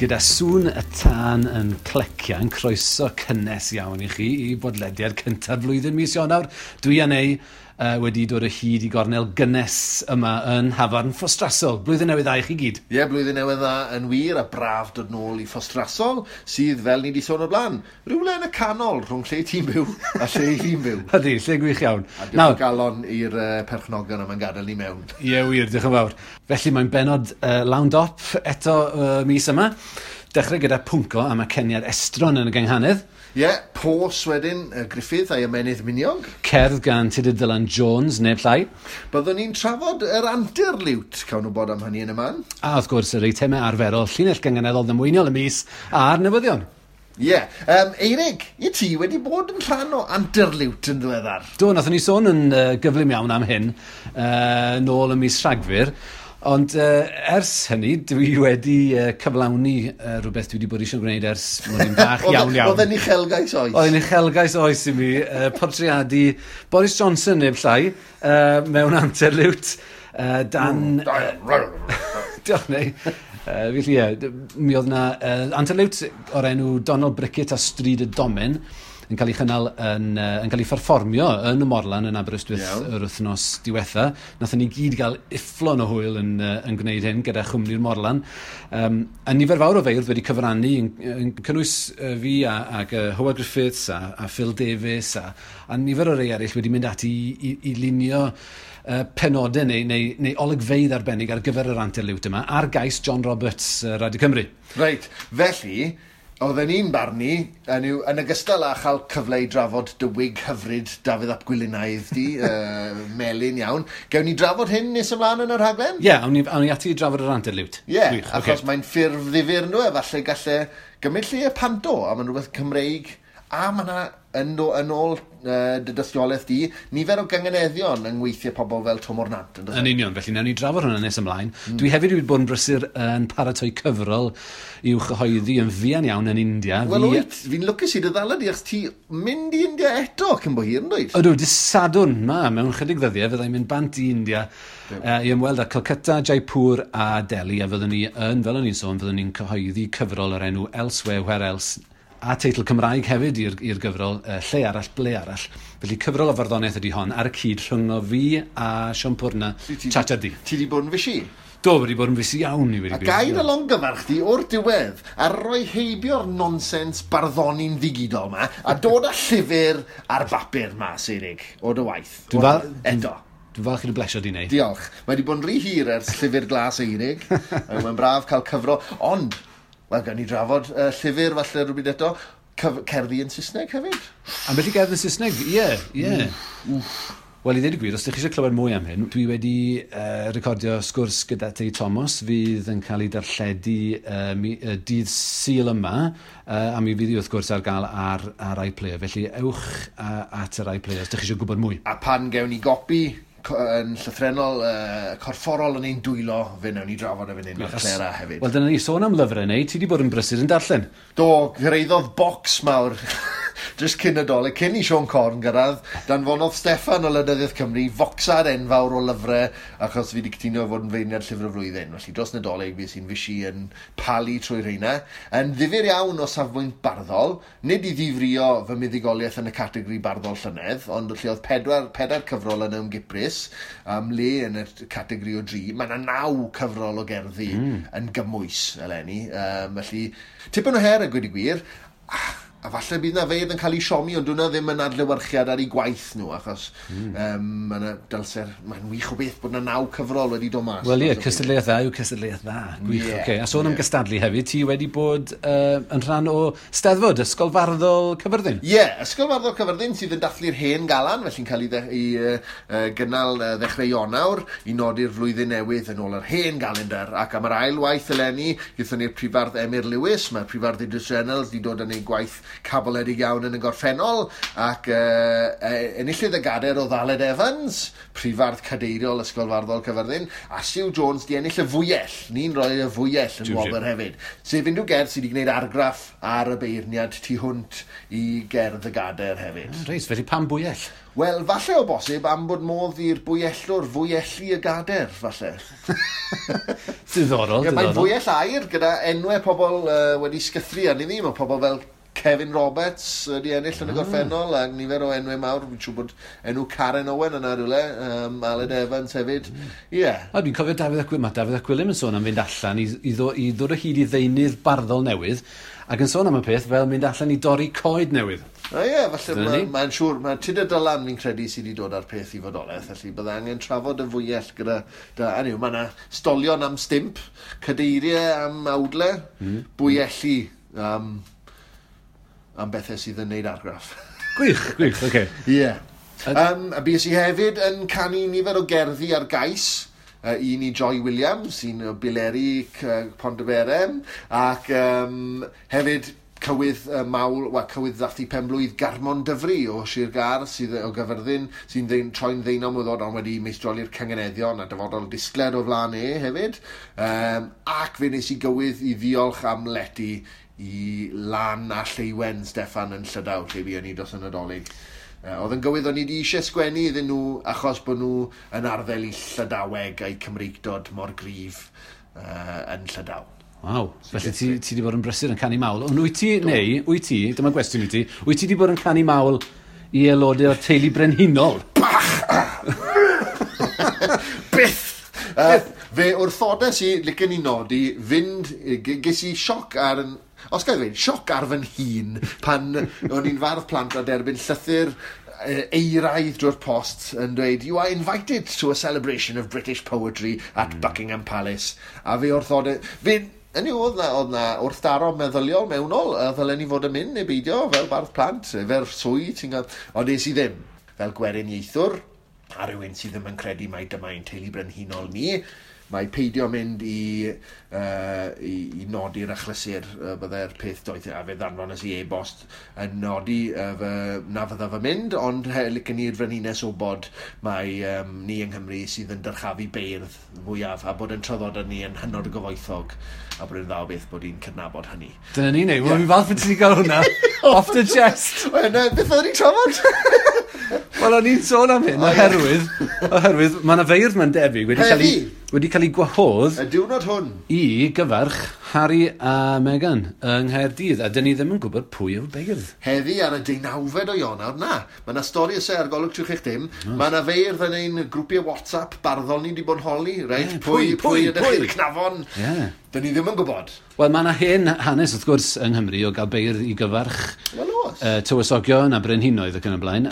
Gyda sŵn y tân yn clecian, croeso cynnes iawn i chi i bodlediad cynta'r flwyddyn mis Ionawr. Dwi a Nei wedi dod o hyd i gornel gynnes yma yn Nhafarn Ffostrasol. Blwyddyn newydd dda i chi gyd. Ie, yeah, blwyddyn newydd dda yn wir a braf dod nôl i Ffostrasol, sydd, fel ni wedi sôn o'r blaen, rhywle yn y canol rhwng lle ti'n byw a lle fi'n byw. Ydy, lle gwych iawn. A diolch o galon i'r perchnogion am yn gadael ni mewn. Ie, yeah, wir, diolch yn fawr. Felly mae'n benod lawn dop eto mis yma. Dechrau gyda pwnco am aceniad estron yn y gynghanedd. Ie, yeah, pos wedyn, Griffith a'i ymenydd miniog. Cerdd gan Tudur Dylan Jones, neb llai. Byddwn ni'n trafod yr antur liwt, cawn wybod am hynny yn y man. A wrth gwrs, yr eitemau arferol, llinell gynganeddol ddamweiniol y mis a'r newyddion. Ie. Yeah. Eirig, i ti wedi bod yn rhan o antur liwt yn ddiweddar? Do, nathon ni sôn yn gyflym iawn am hyn, nôl ym mis Rhagfyr. Ond ers hynny, dwi wedi cyflawni rhywbeth dwi wedi bod eisiau gwneud ers mod i'n bach iawn iawn. Oedd e'n uchelgais oes? Oedd e'n uchelgais oes i mi, portreadu Boris Johnson neb llai, mewn antur liwt, dan... Diolch, Nei. Felly ie, mi oedd na antur liwt o'r enw Donald Brickett a Stryd y Domen yn cael ei chynnal yn cael ei pherfformio yn y Morlan yn Aberystwyth yr wythnos diwetha. Nathon ni gyd gael ufflon o hwyl yn gwneud hyn gyda chwmni'r Morlan. A nifer fawr o feirdd wedi cyfrannu yn cynnwys fi ac Hywel Griffiths a Phil Davies a nifer o rei eraill wedi mynd ati i lunio penodau neu olygfeydd arbennig ar gyfer yr antur liwt yma ar gais John Roberts, Radio Cymru. Reit, felly, oedden ni'n barnu, yn ogystal â chael cyfle i drafod dy wig hyfryd Dafydd ap Gwilynaidd di, melyn iawn. Gewn ni drafod hyn nes ymlaen yn y rhaglen? Ie, yeah, awn ni ati i drafod yr antur liwt. Ie, yeah, achos okay. Mae'n ffurf ddifyr nhw, efallai gallai gymryd lle y panto, a mae'n rhywbeth Cymreig, a mae yna, yn ôl dy dystiolaeth di, nifer o gynganeddion yng ngweithiau pobl fel Twm o'r Nant. Yn union, felly nawn ni drafod hwnna nes ymlaen. Dwi hefyd wedi bod yn brysur yn paratoi cyfrol i'w chyhoeddi yn fuan iawn yn India. Wel wyt, fi'n lwcus i dy ddala di, achos ti mynd i India eto cyn bo hir, yn dweud? Ydw, dydd Sadwrn ma, mewn chydig ddyddiau, fyddai'n mynd bant i India i ymweld â Calcutta, Jaipur a Delhi, a fyddwn ni yn, fel o'n i'n sôn, fyddwn ni'n cyhoeddi cyfrol o'r enw Elsewhere, Where Else, a teitl Cymraeg hefyd i'r gyfrol, Lle Arall, Ble Arall. Felly cyfrol o farddoniaeth ydy hon, ar y cyd rhyngo fi a Siôn Pwrna, Chacha Di. Ti di bod yn fysi? Do, wedi bod yn fysi iawn i wedi. A gair y longyfarch di o'r diwedd, a roi heibio'r nonsens barddoni'n ddigidol ma, a dod â llyfr ar bapur ma, Eirig, o dy waith. Eto. Dwi'n falch i dy blesio di wneud. Diolch. Mae wedi bod yn rhy hir ers llyfr glas Eirig. Mae'n braf cael cyfro, ond wel, gawn ni drafod llyfr falle rhywbryd eto, cerddi yn Saesneg hefyd. Ambell i gerdd yn Saesneg, ie, ie. Wel, i ddweud y gwir, os ydych chi eisiau clywed mwy am hyn, dwi wedi recordio sgwrs gyda Tei Thomas fydd yn cael ei darlledu dydd Sul yma, a mi fydd hi wrth gwrs ar gael ar iPlayer. Felly ewch at yr iPlayer os ydych chi eisiau gwybod mwy. A pan gewn ni gopi yn llythrennol, corfforol yn ein dwylo, fe wnawn ni drafod efo hyn ar Clera hefyd. Wel, dyna ni, sôn am lyfrau neu, ti wedi bod yn brysur yn darllen. Do, gyrhaeddodd bocs mawr jyst cyn y Dolig, cyn i Siôn Corn gyrraedd, danfonodd Steffan o Lynyddiaeth Cymru focsad enfawr o lyfrau, achos fi wedi cytuno fod yn feirniad llyfr y flwyddyn. Felly dros Nadolig fi sy'n fysi yn palu trwy rheina. Yn ddifyr iawn o safbwynt barddol, nid i ddifrio fy muddugoliaeth yn y categori barddol llynedd, ond lle oedd pedair cyfrol yn ymgiprys, am le yn y categori o 3, mae yna 9 cyfrol o gerddi yn gymwys eleni. Felly, tipyn o her a gweud y gwir, a falle bydd na feirdd yn cael ei siomi, ond hwnna ddim yn adlewyrchiad ar ei gwaith nhw, achos mae'n dylser, mae'n wych o beth bod na 9 cyfrol wedi dod mas. Wel ie, cystadleuaeth dda yw cystadleuaeth dda. Gwych, yeah, okay. A sôn am gystadlu hefyd, ti wedi bod yn rhan o Steddfod, Ysgol Farddol Cyfyrddin? Ie, yeah, Ysgol Farddol Cyfyrddin sydd yn dathlu'r hen galan, felly'n cael ei gynnal ddechrau Ionawr i nodi'r flwyddyn newydd yn ôl yr hen galendar. Ac am yr ail waith eleni, gaethon ni'r prifardd Emyr Lewis, mae'r prifardd Idris Reynolds wedi dod yn ei gwaith caboledig iawn yn y gorffennol, ac enillydd y gader o Aled Evans, prifardd cadeiriol Ysgol Farddol Cyfyrddin, a Sue Jones di ennill y fwyell. Ni'n rhoi y fwyell yn wobr hefyd. Sef unrhyw gerdd sydd wedi gwneud argraff ar y beirniad tu hwnt i gerdd y gader hefyd. Reit, felly pam bwyell? Wel, falle o bosib am bod modd i'r bwyellwr fwyellu y gader, falle. Diddorol, Ie, mae'n diddorol. fwyell aur gyda enwau pobl wedi sgythru arni ddi. Mae pobl fel Kevin Roberts wedi ennill yn y gorffennol, a nifer o enwau mawr. Fi'n siŵr bod enw Karen Owen yna rhywle, Aled Evans hefyd. Ie. Yeah. A dwi'n cofio Dafydd ap Gwilym, mae Dafydd ap Gwilym yn sôn am fynd allan i ddod o hyd i ddeunydd barddol newydd, ac yn sôn am y peth fel mynd allan i dorri coed newydd. O ie, falle Dyna ni. Mae'n siŵr, mae Tudur Dylan fi'n credu sydd wedi dod â'r peth i fodolaeth, felly bydde angen trafod y fwyell gyda, da, anyway, mae yna stolion am stimp, cadeiriau am awdle, bwyelli am bethau sydd yn neud argraff. Gwych, gwych, oce. Okay. Ie. Yeah. A bues i hefyd yn canu nifer o gerddi ar gais. Un i Joy Williams, un o Bileri Pontyberem, ac hefyd cywydd mawl, wel, cywydd ddathlu penblwydd Garmon Dyfri o Sir Gâr, sydd o Gyfyrddin, sy'n troi'n ddeunaw mlwydd oed, ond wedi meistroli'r cynganeddion a dyfodol disgled o flaen e hefyd. Ac fe nes i gywydd i ddiolch am lety i Lan a Lleuwen Steffan yn Llydaw, lle fuon ni dros y Nadolig. Oedd yn gywydd o'n i wedi eisiau sgwennu iddyn nhw achos bod nhw yn arddel i Llydaweg a'i Cymreictod mor gryf yn Llydaw. Waw, felly ti wedi bod yn brysur yn canu mawl. Ond wyt ti, neu, wyt ti, dyma gwestiwn i ti, wyt ti wedi bod yn canu mawl i aelodau o'r teulu brenhinol? Byth! Fe wrthodes i, licen i nodi, fynd, ges i sioc ar yn, os gael ddweud, sioc ar fy nhîn pan o'n i'n fardd plant a derbyn llythyr eiraidd drwy'r post yn dweud, "You are invited to a celebration of British poetry at Buckingham Palace." A fe wrthode, fe, Hynny yw, oedd na wrthdaro meddyliol mewnol, a ddylen ni fod yn mynd neu beidio fel bardd plant, efo'r swydd ti'n gael. Ond es i ddim, fel gweriniaethwr, a rhywun sydd ddim yn credu mai dyma ein teulu brenhinol ni, mae peidio mynd i nodi'r achlysur byddai'r peth doeth, a fe ddanfones i e-bost yn nodi na fydda fy mynd, ond licen i'r frenhines wybod mai ni yng Nghymru sydd yn dyrchafu beirdd fwyaf a bod yn traddodad ni yn hynod o gyfoethog a bod yn dda o beth bod ni'n cydnabod hynny. Dyna ni, neu. Wel, fi'n falch bod ti wedi cael hwnna off the chest. Wel, na, beth oedden ni'n trafod? Wel, o'n i'n sôn am hyn, oherwydd mae yna feirdd mae'n debyg wedi cael ei gwahodd Y diwrnod hwn. i gyfarch Harry a Meghan yng Nghaerdydd, a dyn ni ddim yn gwybod pwy yw'r beirdd. Heddi ar y 19fed o Ionawr, na. Mae yna stori ysau ar Golwg Trwch Eich Dim. Mae yna feirdd yn ein grwpiau WhatsApp barddol ni wedi bod yn holi, reit? Ie, Pwy, pwy, pwy ydych pwy? chi'r cnafon? Ie. Dyn ni ddim yn gwybod. Wel, mae yna hen hanes, wrth gwrs, yng Nghymru o gael beirdd i gyfarch Wel, oes. Tywysogion a brenhinoedd ac yn y blaen,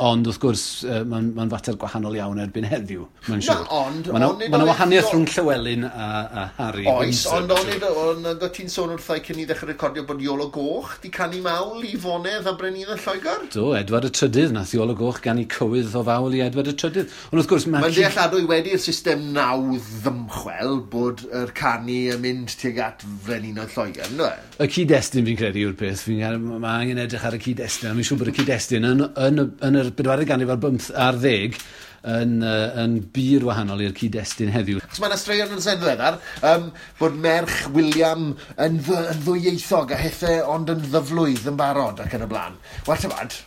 ond wrth gwrs, mae'n fater gwahanol iawn erbyn heddiw, mae'n Na, siŵr. ond Mae yna onid ma oedd wahaniaeth rhwng Llywelyn a Harry Oes, Windsor, ond onid, ond oedd ti'n sôn wrthai cyn i ddechrau recordio bod Iolo Goch di canu mawl i fonedd a brenhinoedd Lloegr? Do, Edward y Trydydd, nath Iolo Goch ganu cywydd o fawl i Edward y Trydydd. Ond wrth gwrs, mae... Mae'n dealladwy wedi'r system nawdd ddymchwel bod yr canu yn mynd tuag at frenhinoedd Lloegr, ynddo e? Y cyd-destun fi'n credu yw'r peth. Mae angen edrych ar y cyd-destun. A fi'n siŵr bod y cyd-destun yn yr bedwaredd ganrif ar 15 yn bur wahanol i'r cyd-destun heddiw. Achos mae yna straeon yn sen ddiweddar, bod merch William yn ddwyieithog a hethe ond yn ddyflwydd yn barod ac yn y blaen. Wel, tybad,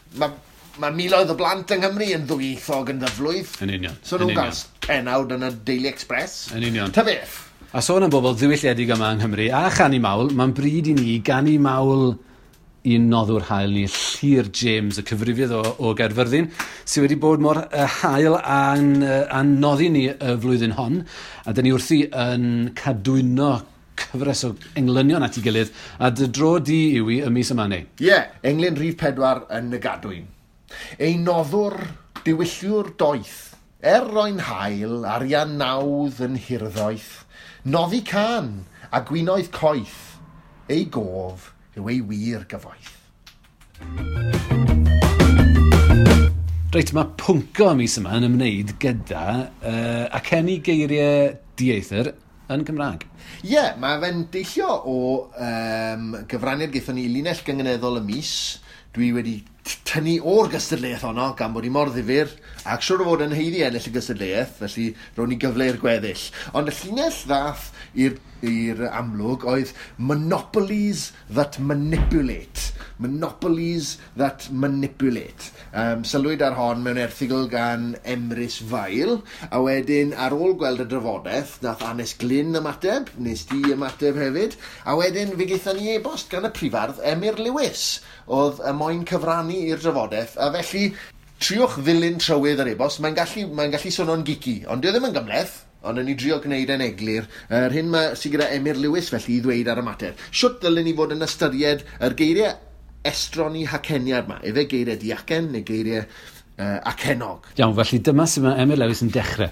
mae miloedd o blant yng Nghymru yn ddwyieithog yn ddyflwydd. Yn union, So yn nhw'n union. gael pennawd yn y Daily Express. Yn union. Ta beth? A sôn am bobl ddiwylliedig yma yng Nghymru a chanu mawl, mae'n bryd i ni ganu mawl i'n noddwr hael ni, Llyr James, y cyfrifydd o Gaerfyrddin, sydd wedi bod mor hael a'n noddi ni y flwyddyn hon. A dyn ni wrthi yn cadwyno cyfres o englynion at ei gilydd, a dy dro di yw i y mis yma neu. Ie, yeah, englyn rhif 4 yn y gadwyn. Ei noddwr diwylliwr doeth, er roi'n hael, arian nawdd yn hirddoeth, noddi can a gwinoedd coeth, ei gof yw ei wir gyfoeth. Reit, mae pwnco y mis yma yn ymwneud gyda acenu geiriau dieithr yn Gymraeg. Ie, yeah, mae fe'n deillio o gyfraniad gaethon ni i linell gynganeddol y mis. Dwi wedi tynnu o'r gystadleuaeth honno gan bod hi mor ddifyr ac siŵr o fod yn haeddu ennill y gystadleuaeth, felly rown ni gyfle i'r gweddill. Ond y llinell ddath i'r amlwg oedd monopolies that manipulate. Monopolies that manipulate. Sylwyd ar hon mewn erthygl gan Emrys Fael, a wedyn ar ôl gweld y drafodaeth, nath Anes Glyn ymateb, nes di ymateb hefyd, a wedyn fe gaethon ni e-bost gan y prifardd Emyr Lewis, oedd y moyn cyfrannu i'r drafodaeth, a felly triwch ddilyn trywydd yr e-bost, mae'n gallu swnio'n geeky, ond dyw e ddim yn gymhleth. Ond yn ni drio gwneud e'n eglur, yr hyn sydd gyda Emyr Lewis felly i ddweud ar y mater. Shwt ddylen ni fod yn ystyried yr geiriau estron i haceniad yma? Efe geiriau diacen neu geiriau acennog? Iawn, felly dyma sut mae Emyr Lewis yn dechrau.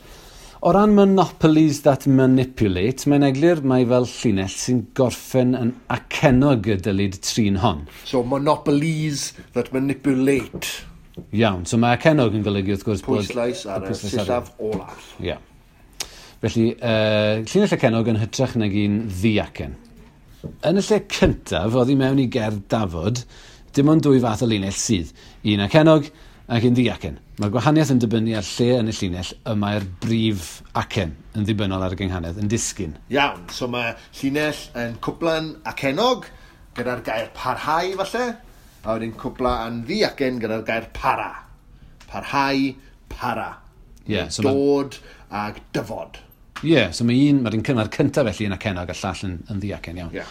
O ran monopolies that manipulate, mae'n eglur mai fel llinell sy'n gorffen yn acennog y dylid trin hon. So, monopolies that manipulate. Iawn, so mae acennog yn golygu wrth gwrs bod... Pwyslais ar y sillaf olaf. Ie. Yeah. Felly, llinell acennog yn hytrach nag un ddiacen. Yn y lle cyntaf, oddi mewn i gerdd dafod, dim ond dwy fath o linell sydd. Un acennog ac un ddiacen. Mae'r gwahaniaeth yn dibynnu ar lle yn y llinell y mae'r brif acen yn ddibynnol ar y gynghanedd yn disgyn. Iawn, so mae llinell yn cwpla'n acennog gyda'r gair parhau falle, a wedyn cwpla yn ddiacen gyda'r gair para. Parhau, para. Yeah, so dod ag dyfod. Ie, yeah, so mae'r un cynnar cyntaf felly yn acennog a llall yn ddiacen, iawn. Yeah.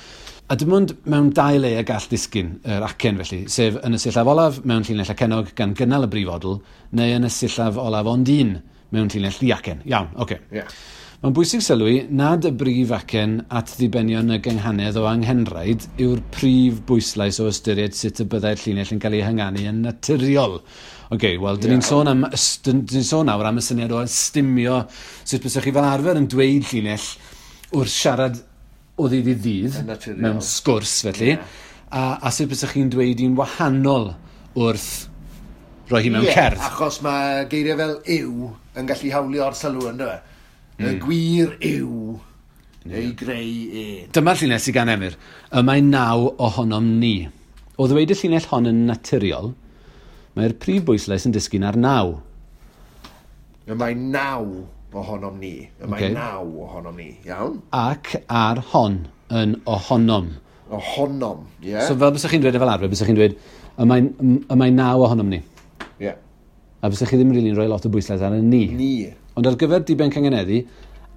A dim ond mewn dau le y gall ddisgyn yr acen felly, sef yn y sillaf olaf mewn llinell acennog gan gynnal y brif odl, neu yn y sillaf olaf ond un mewn llinell ddiacen. Iawn, oce. Okay. Yeah. Mae'n bwysig sylwi nad y brif acen at ddibenion y gynghanedd o anghenraid yw'r prif bwyslais o ystyried sut y byddai'r llinell yn cael ei hynganu yn naturiol. Oce, wel, dyn ni'n sôn nawr am y syniad o ystumio sut bysach chi fel arfer yn dweud llinell wrth siarad o ddydd i ddydd, mewn sgwrs felly, yeah. a sut bysach chi'n dweud un wahanol wrth roi hi mewn cerdd. Achos mae geiriau fel yw yn gallu hawlio'r sylw ynddo fe. Y gwir yw ei greu e. Dyma'r llinell sydd gan Emyr. Y mae 9 ohonom ni. O ddweud y llinell hon yn naturiol, mae'r prif bwyslais yn disgyn ar 9. Y mae 9 ohonom ni. Y mae 9 ohonom ni, iawn. Ac ar hon yn ohonom. Ohonom, ie. Yeah. So fel bysach chi'n dweud fel arfer, bysach chi'n dweud, y mae 9 ohonom ni. Ie. Yeah. A bysach chi ddim rili'n rhoi lot o bwyslais ar y ni. Ni. Ond ar gyfer diben cyngeneddu,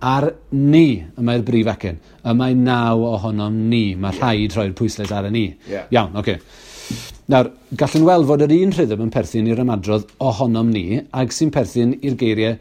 ar ni y mae'r brif acen. Y mae 9 ohonom ni. Mae rhaid rhoi'r pwyslais ar y ni. Yeah. Iawn, oce. Okay. Nawr, gallwn weld fod yr un rhythm yn perthyn i'r ymadrodd ohonom ni ag sy'n perthyn i'r geiriau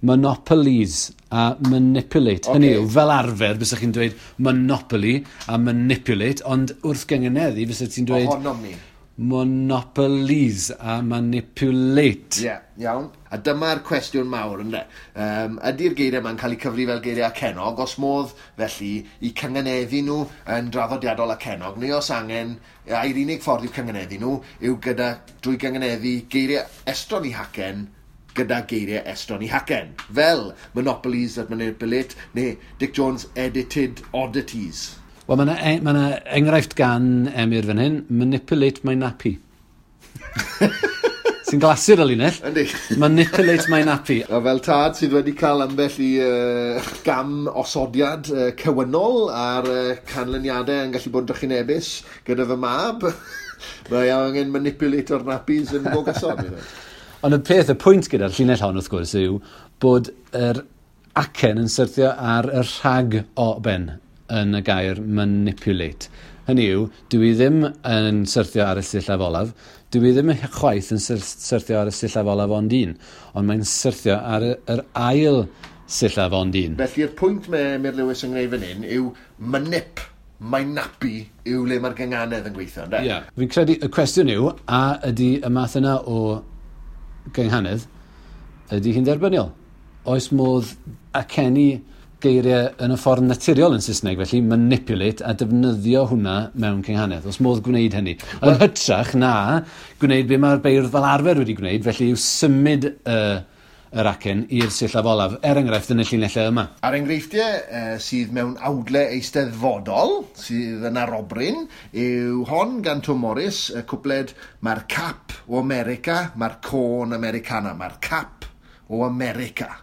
monopolies a manipulate. Okay. Hynny yw, fel arfer, bysach chi'n dweud monopoly a manipulate, ond wrth gyngeneddu, bysach ti'n dweud... Ohonom ni. Monopolies a manipulate. Ie, yeah, iawn. A dyma'r cwestiwn mawr, ynde. Ydy'r geiriau yma'n cael eu cyfri fel geiriau acennog, os modd felly i cyngeneddu nhw yn draddodiadol acennog, neu os angen, ai'r unig ffordd i'w cyngeneddu nhw yw gyda, drwy gyngeneddu geiriau estron i hacen gyda geiriau estron i hacen. Fel Monopolies that Manipulate neu Dick Jones Edited Oddities. Wel, mae yna enghraifft gan Emyr fan hyn, manipulate my nappy. Sy'n glasur y linell. Yndi. Manipulate my nappy. A fel tad sydd wedi cael ambell i gam osodiad cywynol a'r canlyniadau yn gallu bod yn drychinebus gyda fy mab, mae angen manipulate o'r nappies yn go gyson. Ond y peth, y pwynt gyda'r llinell hon wrth gwrs yw bod yr acen yn syrthio ar y rhag o ben yn y gair manipulate. Hynny yw, dwi ddim yn syrthio ar y sillaf olaf, dwi ddim chwaith yn syrthio ar y sillaf olaf ond un, ond mae'n syrthio ar yr ail sillaf ond un. Felly'r pwynt mae Emyr Lewis yn gwneud fan hyn yw manip, mae nappy yw le mae'r gynganedd yn gweithio, ynde? Ie. Yeah. Fi'n credu y cwestiwn yw, a ydy y math yna o gynghanedd, ydy hi'n derbyniol? Oes modd acenu geiriau yn y ffordd naturiol yn Saesneg, felly manipulate a defnyddio hwnna mewn cynghanedd. Oes modd gwneud hynny. Yn hytrach na gwneud be mae'r beirdd fel arfer wedi gwneud, felly yw symud yr acen i'r sillaf olaf, er enghraifft yn y llinellau yma. A'r enghreifftiau sydd mewn awdle eisteddfodol, sydd yn arobryn, yw hon gan Tom Morris, y cwpled Mae'r cap o America, mae'r côn Americana, mae'r cap o America.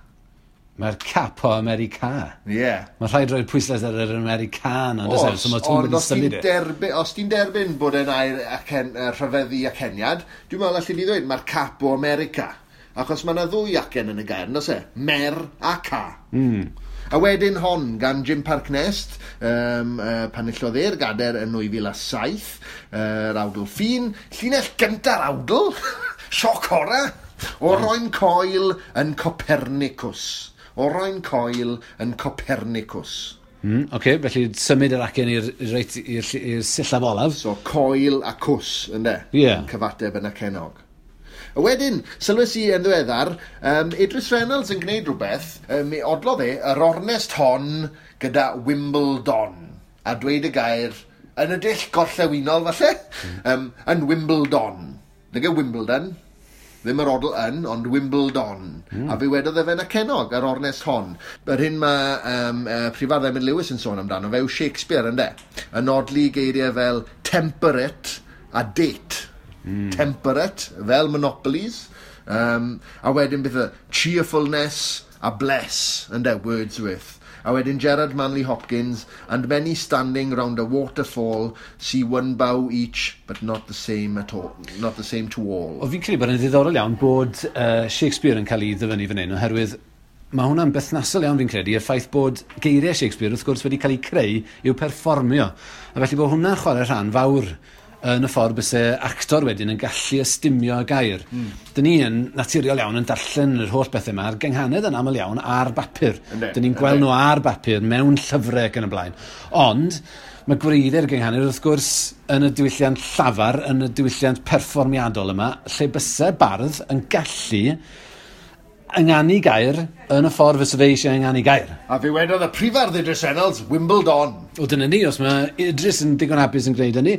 Mae'r Capo America. Ie. Yeah. Mae rhaid roi'r pwyslais ar yr Americana, on'd oes e? So mae Twm Ond wedi os ti'n symud e. derbyn, os ti'n derbyn bod e'n air acen, rhyfeddu aceniad, dwi'n meddwl allu ni ddweud mae'r Capo America. Achos mae yna ddwy acen yn y gair, on'd oes e? Mer a ca. A wedyn hon gan Jim Parc Nest, pan enillodd e'r gader yn 2007, yr awdl ffin, llinell gynta'r awdl, sioc horror, Oroen coel yn Copernicus. Oroen coel yn Copernicus. Oce, felly symud yr acen i'r reit i'r sillaf olaf. So coel a cws, ynde? Ie. Yn cyfateb yn acenog. A wedyn, sylwes i yn ddiweddar, Idris Reynolds yn gwneud rhywbeth, mi odlodd e yr ornest hon gyda Wimbledon. A dweud y gair yn y dull gorllewinol, falle, yn Wimbledon. Nag e Wimbledon, ddim yr odl yn, ond Wimbledon. A fe wedodd e fe'n acenog yr ornest hon. Yr hyn mae Prifardd Emyr Lewis yn sôn amdano fe yw Shakespeare, ynde? Yn odli geiriau fel temperate a date. Temperate, fel monopolies. A wedyn beth y cheerfulness a bless, ynde, Wordsworth. A wedyn Gerard Manley Hopkins, and many standing round a waterfall see one bough each, but not the same at all, not the same to all. O, fi'n credu bod yn ddiddorol iawn bod Shakespeare yn cael ei ddyfynnu fan hyn, oherwydd mae hwnna'n berthnasol iawn fi'n credu, y ffaith bod geiriau Shakespeare wrth gwrs wedi cael eu creu i'w perfformio. A felly bod hwnna'n chwarae rhan fawr yn y ffordd byse actor wedyn yn gallu ystumio y gair. Dyn ni yn naturiol iawn yn darllen yr holl bethau yma, a'r gynghanedd yn aml iawn ar bapur. Yndi, Dyn ni'n gweld yndi. nhw ar bapur mewn llyfrau ac yn y blaen. Ond mae gwreiddiau'r gynghanedd wrth gwrs yn y diwylliant llafar, yn y diwylliant perfformiadol yma, lle byse bardd yn gallu ynganu gair yn y ffordd fysa fe eisiau ynganu gair. A fe wedodd y prifardd Idris Reynolds, Wimbledon. O, dyna ni, os mae Idris yn digon hapus yn gwneud hynny,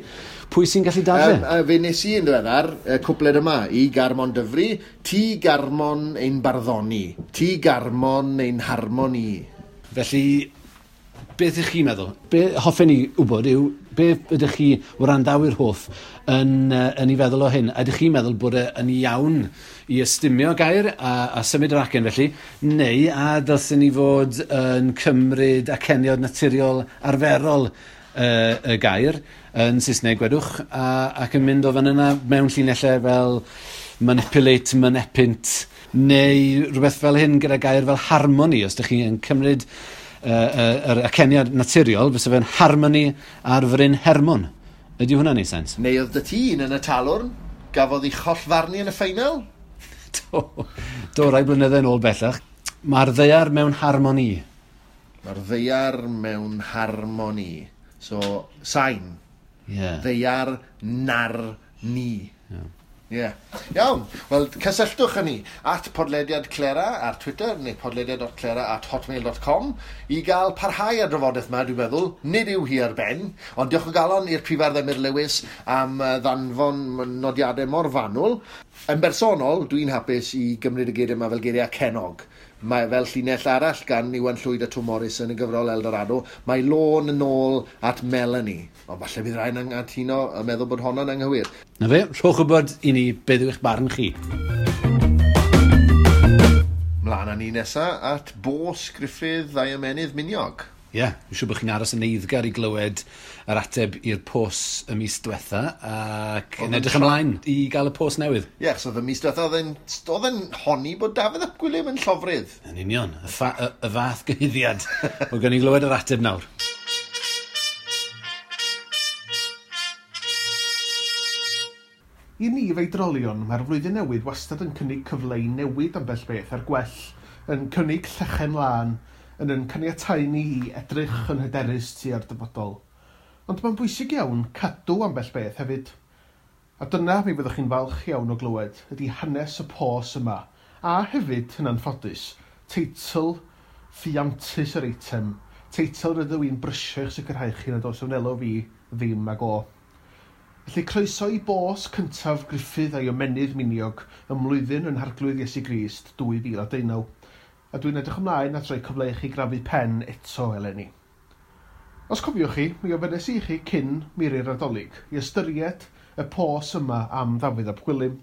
pwy sy'n gallu dadle? A fe nes i yn ddiweddar, y cwpled yma, i Garmon Dyfri, ti Garmon ein barddoni, ti Garmon ein harmoni. Felly, beth ych chi'n meddwl? Be hoffen ni wybod yw, be ydych chi wrandawyr hoff yn ei feddwl o hyn? Ydych chi'n meddwl bod e yn iawn i ystumio gair a symud yr acen felly, neu a dylsen ni fod yn cymryd aceniod naturiol arferol y gair yn Saesneg gwedwch ac yn mynd o fan yna mewn llinellau fel manipulate, manepint, neu rhywbeth fel hyn gyda gair fel harmony, os ydych chi'n cymryd yr aceniad naturiol, fysa fe'n harmony ar Fryn Hermon. Ydy hwnna'n neud sens? Neu oedd dy ti un yn y talwrn, gafodd ei chollfarnu yn y ffeinal? Do, rai blynydde yn ôl bellach. Mae'r ddaear mewn harmoni. Mae'r ddaear mewn harmoni. So, sain. Ddaear nar ni. Ie. Iawn. Wel, cysylltwch â ni at podlediad Clera ar Twitter neu podlediad.clera@hotmail.com i gael parhau ar drafodaeth yma, dwi'n meddwl. Nid yw hi ar ben, ond diolch o galon i'r Prifardd Emyr Lewis am ddanfon nodiadau mor fanwl. Yn bersonol, dwi'n hapus i gymryd y geiriau yma fel geiriau cenog. Mae fel llinell arall gan Iwan Llwyd a Twm Morys yn y gyfrol Eldorado, mae lôn yn ôl at Melanie. Ond falle bydd rhaid anghytuno a meddwl bod honno'n anghywir. Na fe, rhowch wybod i ni beth yw eich barn chi. Mlaen â ni nesa at Bos Gruffydd a'i ymennydd miniog. Ie, yeah, dwi'n siŵr bod chi'n aros yn eiddgar i glywed yr ateb i'r pos y mis diwetha ac yn edrych ymlaen i gael y pos newydd. Ie, achos oedd y mis diwetha oedd e'n honni bod Dafydd ap Gwilym yn llofrudd. Yn union, y fath gyhuddiad. Wel, gawn ni glywed yr ateb nawr. I ni feidrolion, mae'r flwyddyn newydd wastad yn cynnig cyfle i newid ambell beth ar gwell, yn cynnig llechen lân, yn caniatáu ni i edrych yn hyderus tua'r dyfodol. Ond mae'n bwysig iawn cadw ambell beth hefyd. A dyna mi fyddwch chi'n falch iawn o glywed ydy hanes y pos yma, a hefyd, yn anffodus, teitl ffiantus yr eitem, teitl rydw i'n brysio i'ch sicrhau chi nad oes wnelo fi ddim ag o. Felly croeso i bos cyntaf Gruffydd a'i ymennydd miniog ym mlwyddyn yn Harglwydd Iesu Grist 2019, a dwi'n edrych ymlaen at roi cyfle i chi grafu pen eto eleni. Os cofiwch chi, mi ofynnes i chi cyn miri'r Nadolig i ystyried y pos yma am Ddafydd ap Gwilym.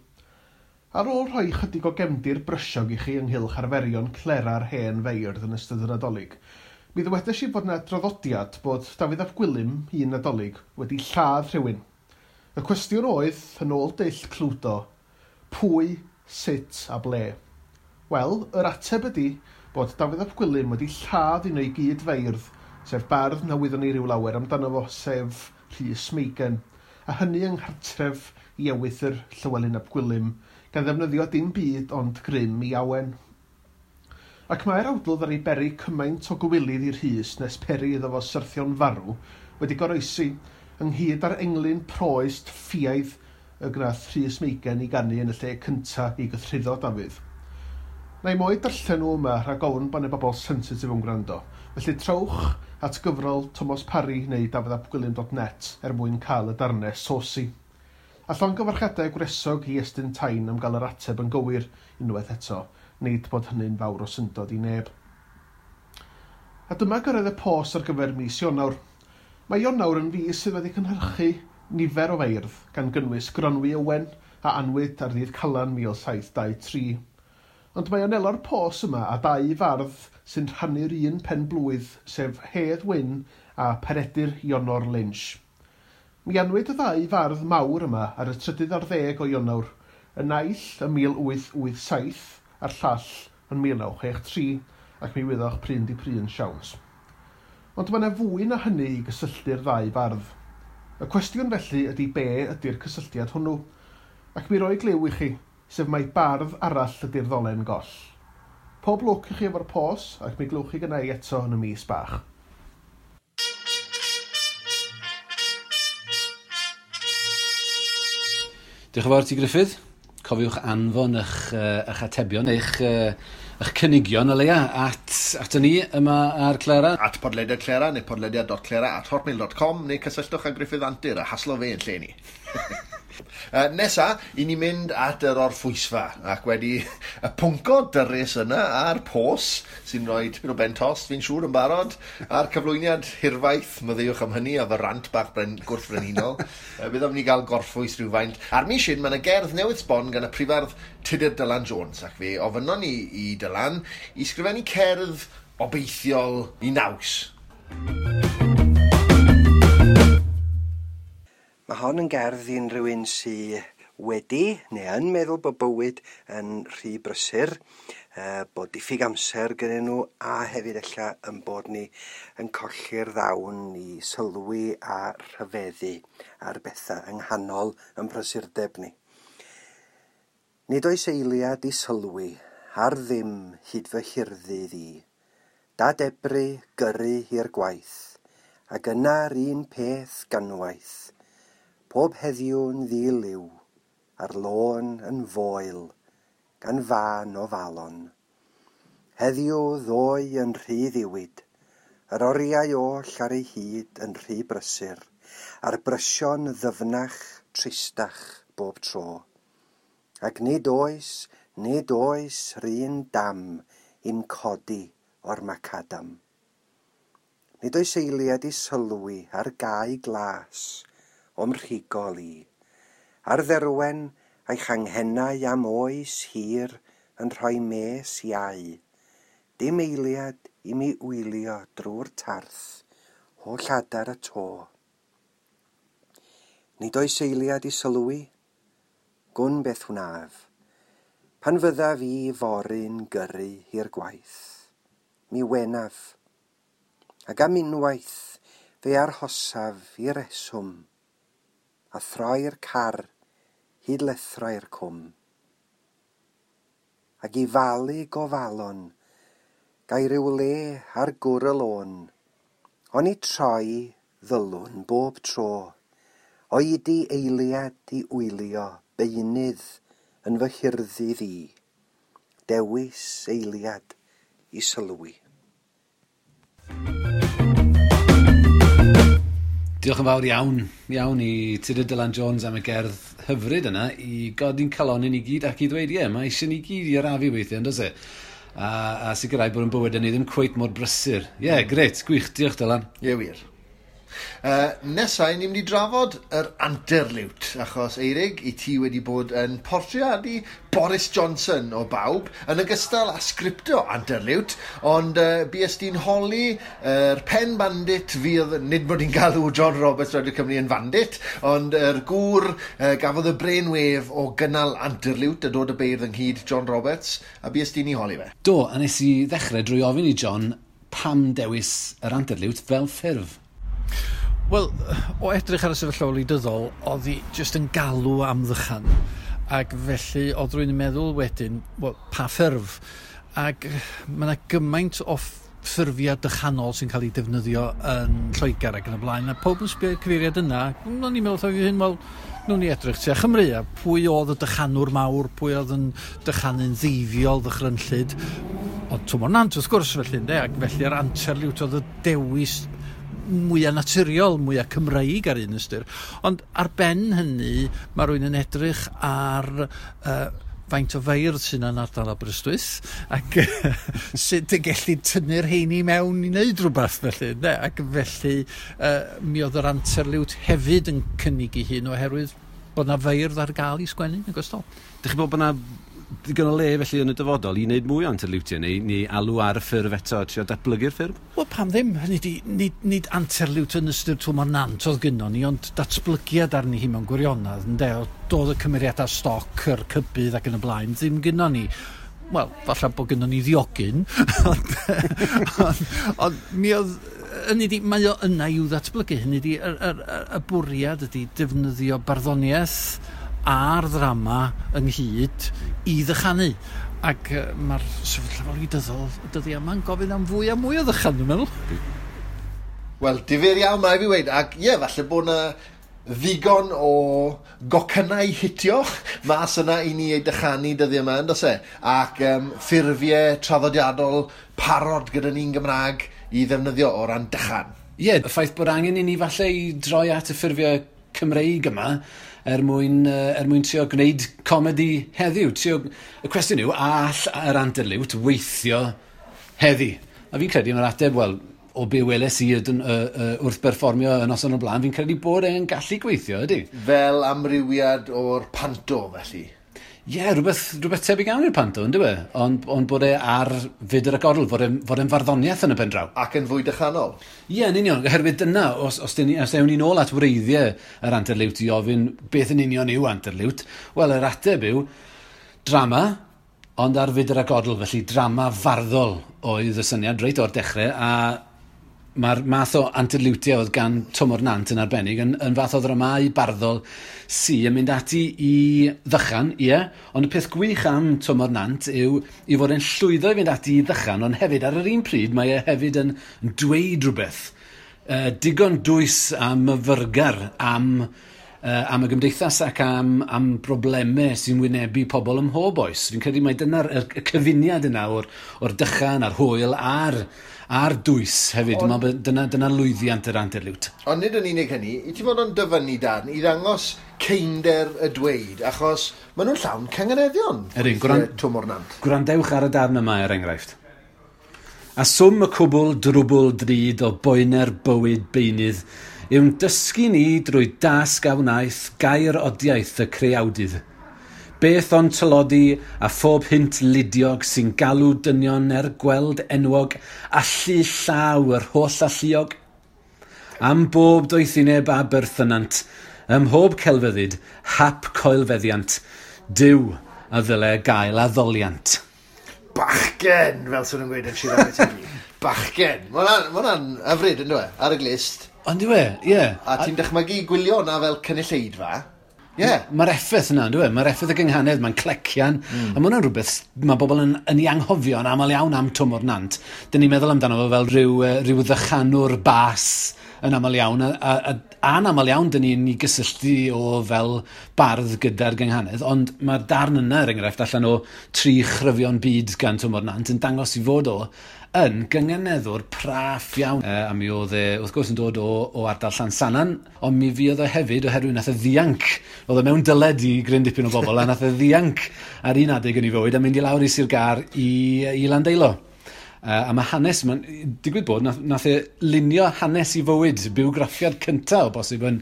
Ar ôl rhoi chydig o gefndir brysiog i chi ynghylch arferion clera'r hen feirdd yn ystod y Nadolig, mi ddywedais i fod yna draddodiad bod Dafydd ap Gwilym, un Nadolig, wedi lladd rhywun. Y cwestiwn oedd, yn ôl dull Cludo, pwy, sut a ble? Wel, yr ateb ydy bod Dafydd ap Gwilym wedi lladd un o'i gyd feirdd, sef bardd na wyddwn ni ryw lawer amdano fo, sef Rhys Meigen, a hynny yng nghartref i ewythr Llywelyn ap Gwilym, gan ddefnyddio dim byd ond grym i awen. Ac mae'r awdl ddaru beri cymaint o gywilydd i Rhys nes peri iddo fo syrthio'n farw wedi goroesi, ynghyd â'r englyn proest ffiaidd y gwnaeth Rhys Meigen i ganu yn y lle cynta i gythruddo Dafydd. Na i mo'i darllen nhw yma rhag ofn bod 'na bobl sensitif yn gwrando, felly trowch at gyfrol Tomos Parry neu dafyddapgwilym.net er mwyn cael y darnau saucy. A llongyfarchiadau gwresog i Estyn Tain am gael yr ateb yn gywir unwaith eto, nid bod hynny'n fawr o syndod i neb. A dyma gyrraedd y pos ar gyfer mis Ionawr. Mae Ionawr yn fis sydd wedi cynhyrchu nifer o feirdd, gan gynnwys Gronwy Owen a anwyd ar ddydd Calan 1723. Ond mae anelo'r pos yma a dau fardd sy'n rhannu'r un pen blwydd, sef Hedd Wyn a Peredur Ionor Lynch. Mi anwyd y ddau fardd mawr yma ar y 13 o Ionawr, y naill ym 1887 a'r llall yn 1963, ac mi wyddoch pryn di pryn siawns. Ond mae yna fwy na hynny i gysylltu'r ddau fardd. Y cwestiwn felly ydy be ydy'r cysylltiad hwnnw, ac mi roi gliw i chi, sef mai bardd arall ydy'r ddolen goll. Pob lwc i chi efo'r pos, ac mi glywch chi gynna i eto yn y mis bach. Diolch yn fawr ti, Gruffydd. Cofiwch anfon eich atebion, eich cynigion o leia at ni yma ar Clera. At podlediad Clera neu podlediad.clera@hotmail.com neu cysylltwch â Gruffydd Antur a haslo fe yn lle ni. Nesa, i ni mynd at yr orffwysfa ac wedi y pwnco dyrys yna a'r pos sy'n rhoi tipyn o ben tost, fi'n siŵr yn barod, a'r cyflwyniad hirfaith, maddeuwch am hynny, a fy rant bach gwrthfrenhinol. Bydd am ni gael gorffwys rhywfaint. A'r mis hyn, mae yna gerdd newydd sbon gan y prifardd Tudur Dylan Jones, ac fe ofynnon ni i Dylan i sgrifennu cerdd obeithiol i naws. Mae hon yn gerdd i unrhyw un sy wedi neu yn meddwl bod bywyd yn rhy brysur, bod diffyg amser gynnyn nhw, a hefyd ella yn bod ni yn colli'r ddawn i sylwi a rhyfeddu ar bethau yng nghanol yn prysurdeb ni. Nid oes eiliad i sylwi ar ddim hyd fy hirddydd i. Dadebru, gyrru i'r gwaith, ac yna'r un peth ganwaith. Pob heddiw'n ddiliw, ar lôn yn foel, gan fân o falon. Heddiw ddoe yn rhy ddiwyd, yr oriau oll ar ei hyd yn rhy brysur, a'r brysion ddyfnach, tristach bob tro. Ac nid oes run dam i'm codi o'r macadam. Nid oes eiliad i sylwi ar gae glas o'm rhigol i, ar dderwen a'i changhennau am oes hir yn rhoi mes iau. Dim eiliad i mi wylio drwy'r tarth, holl adar y to. Nid oes eiliad i sylwi, gwn beth wnaf, pan fyddaf i fory'n gyrru i'r gwaith, mi wenaf, ac am unwaith fe arhosaf i reswm, a throi'r car hyd lethrau'r cwm. Ac i falu gofalon, gai ryw le ar gwr y lôn, oni troi ddylwn bob tro, oedi eiliad i wylio beunydd yn fy hirddydd i, dewis eiliad i sylwi. Diolch yn fawr iawn i Tudur Dylan Jones am y gerdd hyfryd yna i godi'n calonyn ni gyd ac i ddweud, ie, mae eisiau ni gyd i arafu weithiau, yn does e? A sicrhau bod yn bywyd ni ddim cweit mor brysur. Ie, grêt, gwych, diolch Dylan. Ie, wir. Nesa, ni'n mynd i drafod yr anterliwt, achos Eirig, i ti wedi bod yn portreadu Boris Johnson o bawb, yn ogystal â sgriptio anterliwt, ond bues di'n holi yr pen bandit fydd, nid bod i'n galw John Roberts Radio Cymru yn bandit, ond yr gŵr gafodd y brainwave o gynnal anterliwt a dod y beirdd ynghyd, John Roberts, a bues di'n ei holi fe. Do, a nes i ddechrau drwy ofyn i John pam dewis yr anterliwt fel ffurf. Wel, o edrych ar y sefyllfa wleidyddol, oedd hi jyst yn galw am ddychan. Ac felly, oedd rwy'n meddwl wedyn, wel, pa ffurf? Ac mae yna gymaint o ffurfiau dychanol sy'n cael ei defnyddio yn Lloegr ac yn y blaen, a pob yn sbio i'r cyfeiriad yna, o'n i'n meddwl wrtho fi hyn, wel, nhw'n ni edrych tua Chymru, a pwy oedd y dychanwr mawr, pwy oedd yn dychanu'n ddeifiol, ddychrynllyd, ond Twm o'r Nant, wrth gwrs, felly, ynde, ac felly'r anterliwt oedd y dewis mwyaf naturiol, mwyaf Cymreig ar un ystyr. Ond ar ben hynny, mae rhywun yn edrych ar faint o feirdd sy'n yn ardal Aberystwyth ac sut y gellu tynnu'r heini mewn i wneud rhywbeth felly. Ne? Ac felly mi oedd yr anterliwt hefyd yn cynnig ei hun oherwydd bod na feirdd ar gael i sgwennu yn ogystal. Dych chi'n bod bod na digon o le felly yn y dyfodol i wneud mwy o anterliwtiau neu alw ar y ffurf eto, trio datblygu'r ffurf? Wel, pam ddim? Hynny di, nid anterliwt yn ystyr Twm o'r Nant oedd gynnon ni, ond datblygiad arni hi mewn gwirionedd, ynde? Doedd y cymeriadau stoc, yr cybydd ac yn y blaen, ddim gynnon ni. Wel, falle bod gynnon ni ddiogyn, ond mi oedd... Hynny di, mae o yna i'w ddatblygu. Hynny di, y bwriad ydi defnyddio barddoniaeth a'r ddrama ynghyd i ddychanu. Ac mae'r sefyllfa wleidyddol y dyddiau yma'n gofyn am fwy a mwy o ddychan, dwi'n meddwl. Wel, difyr iawn, mae fi weud. Ac ie, falle bod na ddigon o gocynnau hitio mas yna i ni ei dychanu dyddiau yma, yndos e? Ac ffurfiau traddodiadol parod gyda ni'n Gymraeg i ddefnyddio o ran dychan. Ie, y ffaith bod angen i ni falle i droi at y ffurfiau Cymreig yma er mwyn trio gwneud comedi heddiw. Y cwestiwn yw, a all yr anterliwt weithio heddi? A fi'n credu mae'r ateb, wel, o be weles i wrth berfformio y noson o'r blaen, fi'n credu bod e'n gallu gweithio, ydy? Fel amrywiad o'r panto, felly? Ie, rhywbeth tebyg iawn i'r panto, ynddo fe? Ond bod e ar fyd yr agorol, fod e'n farddoniaeth yn y pen draw. Ac yn fwy dychanol. Ie, yn union, oherwydd dyna, os ewn ni nôl at wreiddiau yr anterliwt i ofyn beth yn union yw anterliwt, wel, yr ateb yw drama, ond ar fyd yr agodl, felly drama farddol oedd y syniad reit o'r dechrau, a mae'r math o anterliwtiau oedd gan Twm o'r Nant yn arbennig yn fath o ddramâu barddol sy yn mynd ati i ddychan, ie, ond y peth gwych am Twm o'r Nant yw i fod e'n llwyddo i fynd ati i ddychan, ond hefyd ar yr un pryd mae e hefyd yn dweud rhywbeth digon dwys a myfyrgar am y gymdeithas ac am broblemau sy'n wynebu pobl ym mhob oes. Fi'n credu mai dyna'r y cyfuniad yna o'r dychan a'r hwyl a'r dwys hefyd. Ond, dyna lwyddiant yr anterliwt. Ond nid yn unig hynny, i ti fod o'n dyfynnu darn i ddangos ceinder y dweud, achos maen nhw'n llawn cynganeddion. Ydyn, Twm o'r Nant. Gwrandewch ar y darn yma er enghraifft. A swm y cwbl drwbl drud o boener bywyd beunydd yw'n dysgu ni drwy dasg a wnaeth gair odiaeth y creawdydd. Beth ond tylodi a phob hynt ludiog sy'n galw dynion er gweld enwog allu llaw yr holl alluog. Am bob doethineb a berthynant, ym mhob celfyddyd, hap coelfeddiant, Duw a ddyle gael addoliant. Bachgen, fel sy'n nhw'n gweud yn Sir Aberteifi. Bachgen. Mae hwnna'n hyfryd, ynddo e, ar y glist. Ond yw e, ie. A ti'n dychmygu gwylio hwnna fel cynulleidfa. Ie. Mae'r effaith yna, ynddo e? Mae'r effaith y gynghanedd, mae'n clecian. A mae hwnna'n rhywbeth mae bobl yn ei anghofio yn aml iawn am Twm o'r Nant. Dyn ni'n meddwl amdano fo fel rhyw ddychanwr bas yn aml iawn. A'n aml iawn dyn ni'n ei gysylltu o fel bardd gyda'r gynghanedd. Ond mae'r darn yna, er enghraifft, allan o 3 chryfion byd gan Twm o'r Nant yn dangos i fod o yn gynganeddwr praff iawn. A mi oedd e, wrth gwrs, yn dod o ardal Llansannan, ond mi fuodd e hefyd oherwydd nath e ddianc. Oedd e mewn dyled i gryn dipyn o bobl, a nath e ddianc ar un adeg yn ei fywyd a mynd i lawr i Sir Gâr i Landeilo. A mae hanes, mae'n digwydd bod, nath e lunio hanes i fywyd, bywgraffiad cyntaf o bosib yn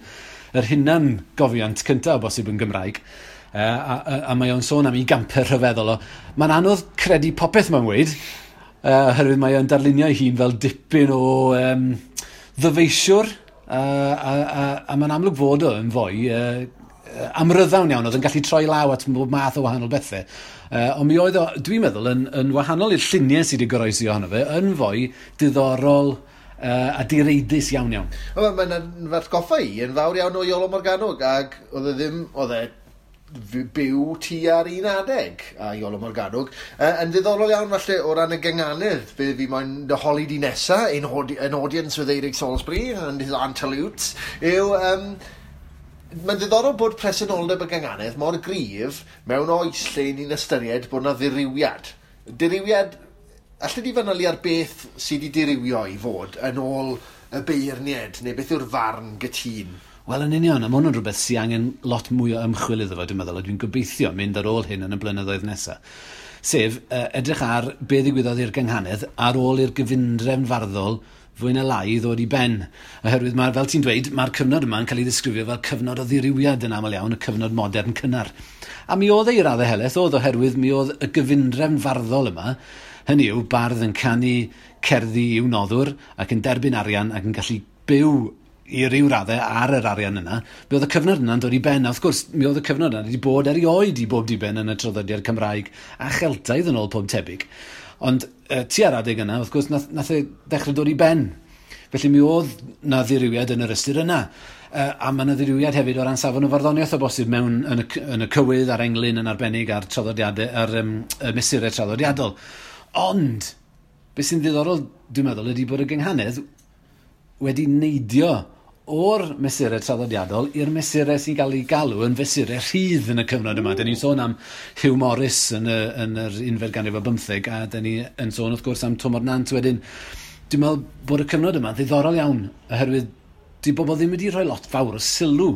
yr hunan gofiant cyntaf o bosib yn Gymraeg. A mae o'n sôn am ei gampau rhyfeddol o. Mae'n anodd credu popeth mae'n weud, oherwydd mae o'n darlunio ei hun fel dipyn o ddyfeisiwr, a mae'n amlwg fod o yn fwy amryddawn iawn, oedd yn gallu troi law at bob math o wahanol bethau. Ond mi oedd o, dwi'n meddwl, yn wahanol i'r lluniau sydd wedi goroesi ohono fe, yn fwy diddorol a direidus iawn iawn. Mae'n atgoffa i yn fawr iawn o Iolo Morganwg, ac oedd e ddim, oedd e byw tua'r un adeg a Iolo Morganwg. Yn ddiddorol iawn falle o ran y gynganedd, be fi moyn dy holi di nesa, in audience with Eirig Salisbury and his antelutes, yw... Mae'n ddiddorol bod presenoldeb y gynganedd mor gryf mewn oes lle ni'n ystyried bod yna ddirywiad. Dirywiad, allai di fanylu ar beth sydd wedi dirywio i fod yn ôl y beirniad, neu beth yw'r farn gytûn? Wel, yn union, a mae hwn yn rhywbeth sy'n angen lot mwy o ymchwil iddo fo, dwi'n meddwl, a dwi'n gobeithio mynd ar ôl hyn yn y blynyddoedd nesaf. Sef, edrych ar be ddigwyddodd i'r gynghanedd ar ôl i'r gyfundrefn farddol fwy na lai ddod i ben. Oherwydd, mae, fel ti'n dweud, mae'r cyfnod yma yn cael ei ddisgrifio fel cyfnod o ddirywiad yn aml iawn, y cyfnod modern cynnar. A mi oedd ei raddau helaeth, oedd oherwydd mi oedd y gyfundrefn farddol yma, hynny yw, bardd yn canu cerddi i'w noddwr ac yn derbyn arian ac yn gallu byw i ryw raddau ar yr arian yna, mi oedd y cyfnod yna'n dod i ben. A wrth gwrs, mi oedd y cyfnod yna wedi bod erioed i bob diben yn y traddodiad Cymraeg a Cheltaidd yn ôl pob tebyg. Ond tua'r adeg yna, wrth gwrs, nath e ddechrau dod i ben. Felly mi oedd na ddirywiad yn yr ystyr yna. A mae yna ddirywiad hefyd o ran safon y farddoniaeth o bosib mewn yn y cywydd a'r englyn yn arbennig a'r traddodiadau, a'r y mesurau traddodiadol. Ond, beth sy'n ddiddorol, dwi'n meddwl, ydy bod y gynghanedd wedi neidio o'r mesurau traddodiadol i'r mesurau sy'n cael ei galw yn fesurau rhydd yn y cyfnod yma. Mm. Dyn ni'n sôn am Hugh Morris yn yr unfed ganrif o bymtheg, a dyn ni yn sôn wrth gwrs am Twm o'r Nant wedyn. Dwi'n meddwl bod y cyfnod yma ddiddorol iawn, oherwydd di bobl ddim wedi rhoi lot fawr o sylw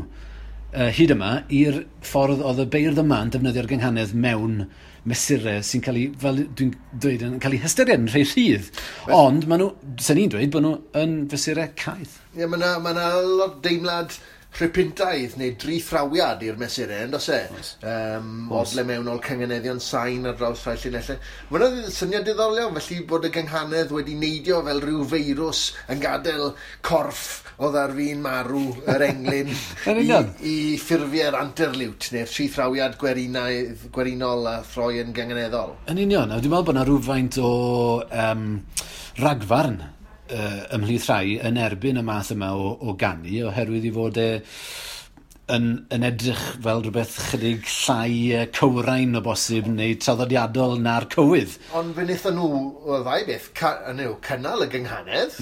hyd yma i'r ffordd oedd y beirdd yma yn defnyddio'r gynghanedd mewn mesurau sy'n cael ei, fel dwi'n dweud, yn cael ei hystyried yn rhai rhydd. Ond maen nhw, sy'n ni'n dweud, bod nhw yn fesurau caeth. Ie, mae yna lot deimlad rhypintaidd neu drithrawiad i'r mesurau, yn does e? Odle mewnol cynganeddion sain ar draws rhai llinellau. Mae yna syniad diddorol iawn, felly bod y gynghanedd wedi neidio fel rhyw feirws yn gadael corff oedd ar fin marw yr englyn i ffurfiau'r anterliwt neu'r trithrawiad gwerinol a throi yn gynganeddol. Yn union, a dwi'n meddwl bod yna rhywfaint o ragfarn ymhlith rhai yn erbyn y math yma o ganu, oherwydd i fod e yn edrych fel rhywbeth chydig llai cywrain o bosib neu traddodiadol na'r cywydd. Ond fe wnaethon nhw, o ddau beth, cynnal y gynghanedd,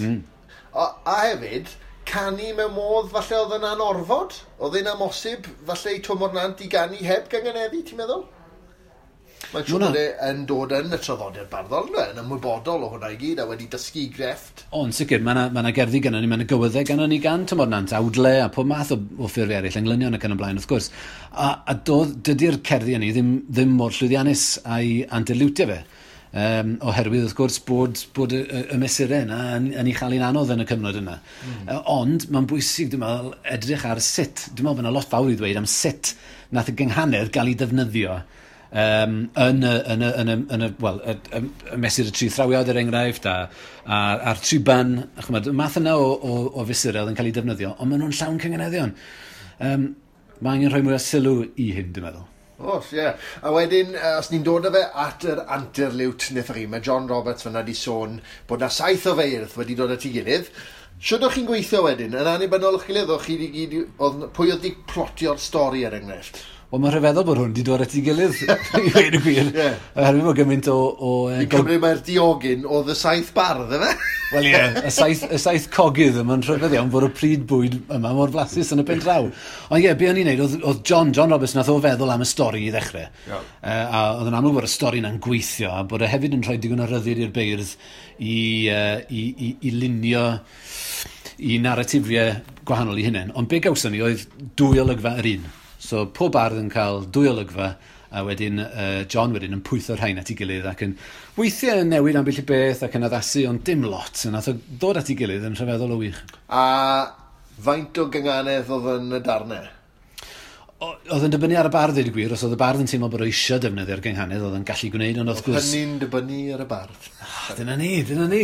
a hefyd canu mewn modd falle oedd yn anorfod, oedd e'n amosib falle i Twm o'r Nant i ganu heb gynganeddu, ti'n meddwl? Mae'n siŵr bod e yn dod yn y traddodiad barddol, yn ymwybodol o hwnna i gyd a wedi dysgu grefft. O, yn sicr, mae yna gerddi gynnon ni, mae yna gywyddau gynnon ni gan Twm o'r Nant, awdle a pob math o ffurfiau eraill, englynion ac yn y blaen, wrth gwrs. A dydy'r cerddi hynny ddim mor llwyddiannus a'i anterliwtio fe. Oherwydd, wrth gwrs, bod y mesurau yna yn ei chael hi'n anodd yn y cyfnod yna. Ond mae'n bwysig, dwi'n meddwl, edrych ar sut. Dwi'n meddwl bod yna lot fawr i ddweud am sut nath y gynghanedd gael ei defnyddio yn y mesur y tri thrawiad, er enghraifft, a'r triban, chymod, y math yna o fesurau oedd yn cael ei defnyddio, ond maen nhw'n llawn cynganeddion. Mae angen rhoi mwy o sylw i hyn, dwi'n meddwl. Oes, ie. A wedyn, os ni'n dod â fe at yr anterliwt wnaethoch chi, mae John Roberts fyna di sôn bod na 7 o feirdd wedi dod at ei gilydd. Shwd o'ch chi'n gweithio wedyn? Yn annibynnol o'ch gilydd, o'ch chi gyd, pwy oedd di plotio'r stori er enghraifft? Wel, mae'n rhyfeddol bod hwn wedi dod at ei gilydd, i weud y gwir. Yeah. Oherwydd bod gymaint o Fi'n cymryd mae'r diogyn oedd y 7 bardd, efe? Wel ie, y 7 cogydd, mae'n rhyfedd iawn bod y pryd bwyd yma mor flasus yn y pen draw. Ond ie, be o'n i'n neud, oedd John Roberts nath o feddwl am y stori i ddechrau. Yeah. A oedd yn amlwg bod y stori yna'n gweithio, a bod e hefyd yn rhoi digon o ryddid i'r beirdd i lunio i narratifiau gwahanol i hunain. Ond be gawson ni oedd 2 olygfa yr un. So pob bardd yn cael 2 olygfa A wedyn John wedyn yn pwytho'r rhain at ei gilydd ac yn weithiau yn newid ambell i beth ac yn addasu, ond dim lot. Yn nath o ddod at ei gilydd yn rhyfeddol o wych. A faint o gynganedd oedd yn y darnau? Oedd yn dibynnu ar y bardd, dweud y gwir. Os oedd y bardd yn teimlo bod o eisiau defnyddio'r gynghanedd, oedd yn gallu gwneud, ond wrth gwrs. Hynny'n dibynnu ar y bardd. Ah, dyna ni, dyna ni.